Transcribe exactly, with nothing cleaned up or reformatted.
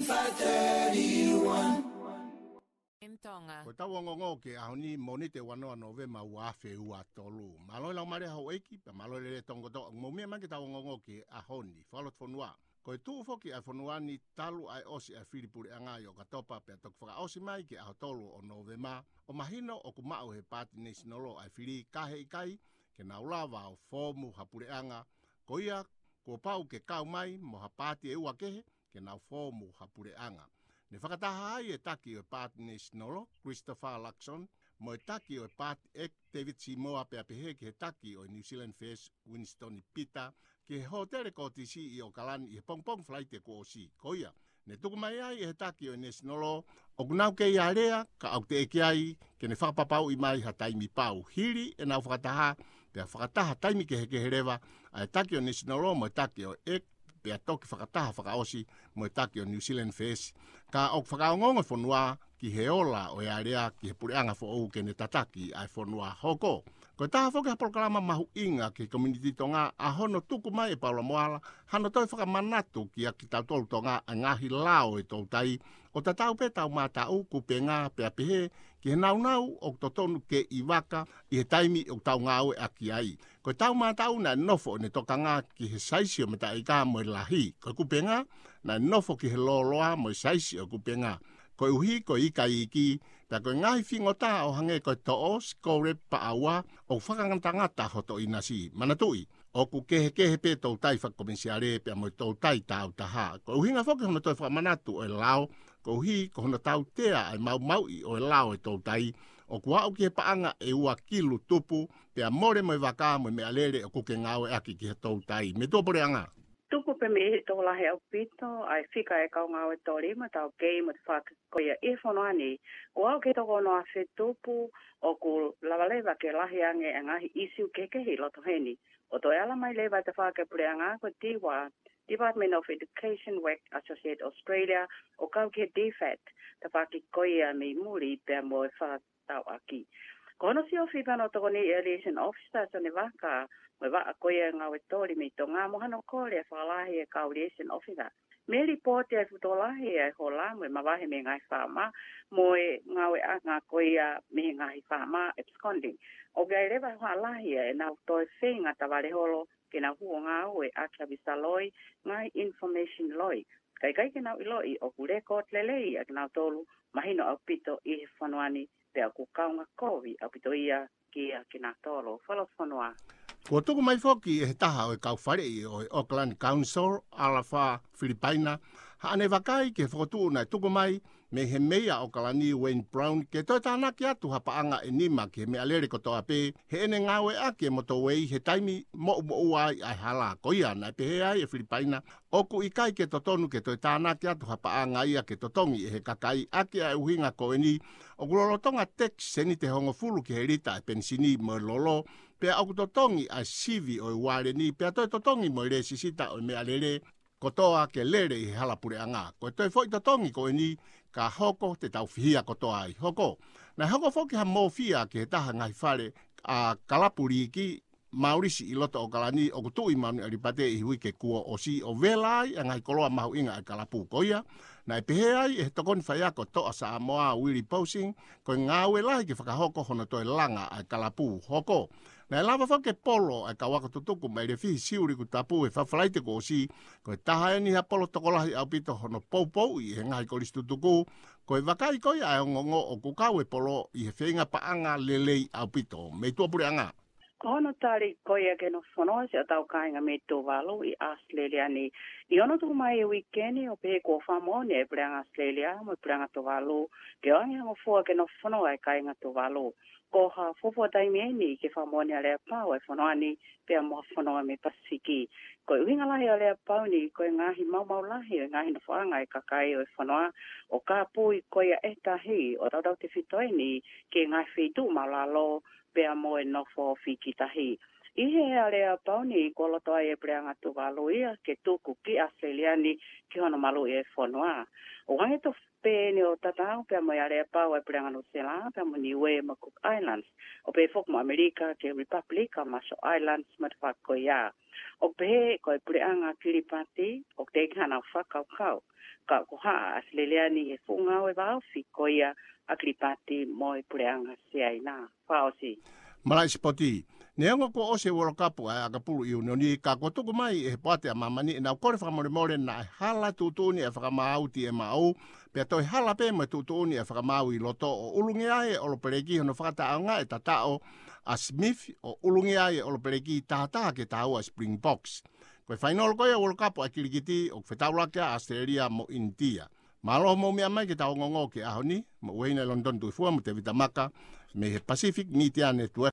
five thirty-one. M Tonga. Ko ʻetau ongoongo ki he ʻaho ni, Mōnite ua noa Nōvema ua afe ua tolu. Mālō e laumālie houʻeiki, pea mālō e lelei tonga kotoa ʻoku mou meʻa mai ki heʻetau ongoongo ki he ʻaho ni. Fakalotofonua. Ko e tuʻu foki ʻa e fonua ni talu ʻa e ʻosi ʻa e fili puleʻanga ʻi ʻOkatopa, pea toki fakaʻosi mai ki he ʻaho tolu ʻo Nōvema, ʻo mahino ʻoku maʻu ʻe he Paati National ʻa e fili, ka he ʻikai ke nau lava ʻo foomu ha puleʻanga. Ko ia, kuo pau ke kau mai mo ha paati ʻe ua kehe ke nau foomu ha puleʻanga. Ne fakataha ai e taki ʻo e Paati National, Christopher Luxon, mo e taki ʻo e Paati ʻEiki, David Seymour, pea pehē ki he taki ʻo e New Zealand First, Winston Peters, ki he hōtele Kōtisi ʻi ʻOkalani ʻi he pongipongi Falaite kuo ʻosi. Ko ia, ne tuku mai ai ʻe he taki ʻo e National ʻoku nau kei alea, ka ʻoku teʻeki ai ke ne fakapapauʻi mai ha taimi pau. Hili ʻenau fakataha, pea fakataha taimi kehekehe leva ʻa e taki ʻo e National mo e taki ʻo e ʻEiki, pea toki fakataha fakaʻosi mo e taki ʻo e New Zealand First. Ka ʻoku fakaongoongo e fonua ki he ola ʻo e alea ki he puleʻanga foʻou ke ne tataki ʻa e fonua. Hoko. Ko e taha foki ha polokalama mahuʻinga ki he community Tonga ʻa hono tuku mai ʻe Paula Moala hano toe fakamanatu kiate kitautolu Tonga ʻa e ngaahi lao ʻo e toutai, ʻo tatau pē ʻetau mātaʻu, kupenga, pea pehē ki he naunau ʻoku totonu ke ʻi vaka ʻi he taimi ʻoku tau ngāueʻaki ai. Ko ʻetau mātaʻu naʻe nofo ʻene tokanga ki he saisi ʻo e mataʻi ika mo e lahi. Ko e kupenga, naʻe nofo ki he lōloa mo e saisi ʻo e kupenga. Koeʻuhi ko e ika iiki, pea ko e ngaahi fingota ʻo hangē ko e toʻo, sikole, paʻaua, ʻoku fakangatangata hoto ʻinasi. Manatuʻi, ʻoku kehekehe pē toutai fakakomesiale pea mo e toutai tāutaha. Ko e ʻuhinga foki hono toe fakamanatu ʻo e lao, koeʻuhi ko hono tautea ʻa e maumauʻi ʻo e lao ʻo e toutai, ʻoku aʻu ki he paʻanga ʻe ua kilu tupu, pea mole mo e vaka mo e meʻalele ʻoku ke ngāueʻaki ki he toutai. Metua Puleʻanga. Tuku pē mei he tokolahi ʻaupito ʻa e fika ʻa e kau ngāue toli mo e taukei mo e tafaʻaki ko ia ʻi he fonua ni, ʻo aʻu ki he toko ono afe tupu, ʻoku lava leva ke lahi ange ʻa e ngaahi ʻisiū kehekehe ʻi loto heni. ʻO toe ala mai leva e tafaʻaki ʻa e puleʻanga ko e DEWA, Department of Education, Work Associates Australia, ʻo kau ki he DFAT, tafaʻaki ko ia mei muli pea mo e fakatauʻaki. Ko hono siofi pē hono tokoni ʻa e liaison officer Sione Vaka, mo e vaʻa ko ia ʻo e ngāue toli mei Tonga, mo hano kole ʻo fakalahi ʻa e kau liaison officer. Mei he lipooti ʻa e fuʻu tokolahi ʻa e hola mo e mavahe mei he ngaahi faama, mo e ngāueʻanga ko ia mei he ngaahi faama absconding. ʻOku ʻi ai leva ha lahi ʻa ʻenau toe feinga tavale holo ke nau hū ʻo ngāueʻaki ha visa loi, ngaahi information loi. Ka ʻikai ke nau ʻiloʻi ʻoku record lelei ʻa kinautolu, mahino ʻaupito ʻi he fonua ni, pea ʻoku kaunga kovi ʻaupito ia kiate kinautolu. Fakalotofonua. Kuo tuku mai foki ʻe he taha ʻo e kau faleʻi ʻo e Auckland Council, Alafa Filipaina, haʻane vakai ki he fokotuʻu naʻe tuku mai mei he Meia ʻo ʻOkalani, Wayne Brown, ke toe tānaki atu ha paʻanga ʻe nima ki he meʻalele kotoa pē heʻene ngāueʻaki e motorway he taimi moʻumoʻua ai ʻa e hala. Ko ia, naʻe pehē ai ʻe Filipaina ʻoku ʻikai ke totonu ke toe tānaki atu ha paʻanga ia ke totongi ʻe he kakai, ʻaki ʻa e ʻuhinga ko eni, ʻoku lolotonga tax seniti ʻe hongofulu ki he lita ʻa e penisini mo e lolo, pea ʻoku totongi ʻa e sivi ʻo e uale ni, pea toe totongi mo e lēsisita ʻo e meʻalele kotoa ke lele ʻi he hala puleʻanga. Ko e toe foʻi totongi ko eni, ka hoko te tau fihia kotoa ai. Hoko. Naʻe hoko foki ha mōfia ki he taha ngaahi fale ʻa e kalapu liiki, Maulisi ʻi loto ʻo ʻOkalani, ʻoku tuʻu ʻi Manuʻialipate ʻi he uike kuo ʻosi, ʻo vela ai ʻa e ngaahi koloa mahuʻinga ʻa e kalapu. Ko ia, naʻe pehē ai ʻe he tokoni faiako Toʻa Samoa, Willie Posing, ko e ngāue lahi ke fakahoko hono toe langa ʻa e kalapu. Hoko. Naʻe lava foki e polo ʻa e kau ako tutuku mei Lefihi Siuʻilikutapu he Falaite kuo ʻosi, ko e taha eni ha polo tokolahi ʻaupito hono poupouʻi ʻe he ngaahi kolisi tutuku. Ko e vakai ko ia ʻa e ongoongo ʻoku kau e polo ʻi he feinga paʻanga lelei ʻaupito. Metua Puleʻanga. Ko hono tali ko ia ki he nofo fonua siʻotau kāinga mei Tuvalu ʻi ʻAositelēlia ni. ʻI hono tuku mai he uike ni, ʻo pehē kuo fakamoʻoni ʻe he Puleʻanga ʻAositelēlia mo e Puleʻanga Tuvalu ke ʻoange ha ngofua ki he nofo fonua ʻa e kāinga Tuvalu. Ko ha fuofua taimi eni ke fakamoʻoni ʻa e aleapau ʻa e fonua ni pea mo ha fonua mei he Pasifiki. Ko e ʻuhinga lahi ʻo e aleapau ni, ko e ngaahi maumau lahi ʻo e ngaahi nofoʻanga ʻa e kakai ʻo e fonua, ʻo kāpui ko ia ʻe tahi, ʻo tautautefito eni ki he ngaahi feituʻu maʻulalo, pea mo e nofo ofi ki tahi. ʻI he aleapau ni, kuo loto ai e Puleʻanga Tuvalu ia ke tuku ki ʻAositelēlia ni ki hono maluʻi e fonua. ʻOku hangē tofu pē eni ʻo tatau pea mo e aleapau ʻa e Puleʻanga Nuʻusila pea mo Niuē mo Cook Islands, ʻo pehē foki mo ʻAmelika ki he Republic ʻa Marshall Islands mo e tafaʻaki ko ia. ʻOku pehē ko e Puleʻanga Kilipati, ʻoku teʻeki hano fakakaukau ka ʻoku haʻa ʻAositelēlia ni he fuʻu ngāue vāofi ko ia ʻa Kilipati mo e Puleʻanga Siaina. Fakaʻosi. Malaʻe sipoti. Neongo kuo ʻosi e World Cup ʻa e ʻakapulu ʻiunioni, ka kuo tuku mai ʻe he poate ʻa māmani ʻenau kole fakamolemole naʻe hala e tuʻutuʻuni ʻa e fakamaau T M O, pea toe hala pē mo e tuʻutuʻuni ʻa e fakamaau ʻi loto, ʻo ʻulungia ai e ʻOlopeleki hono fakataʻeʻaongaʻi e tataʻo ʻa Smith, ʻo ʻulungia ai e ʻOlopeleki taha taha ki he taha ua ʻa e Springboks. Ko e fainolo ko ia ʻo e World Cup ʻa e kilikiti ʻoku fetaulaki ai ʻa ʻAositelēlia mo ʻInitia. Mālō hoʻomou meʻa mai ki heʻetau ongoongo ki he ʻaho ni, mo Ueina ʻi Lonitoni Tuʻifua mo Tēvita Maka, mei he Pacific Media Network.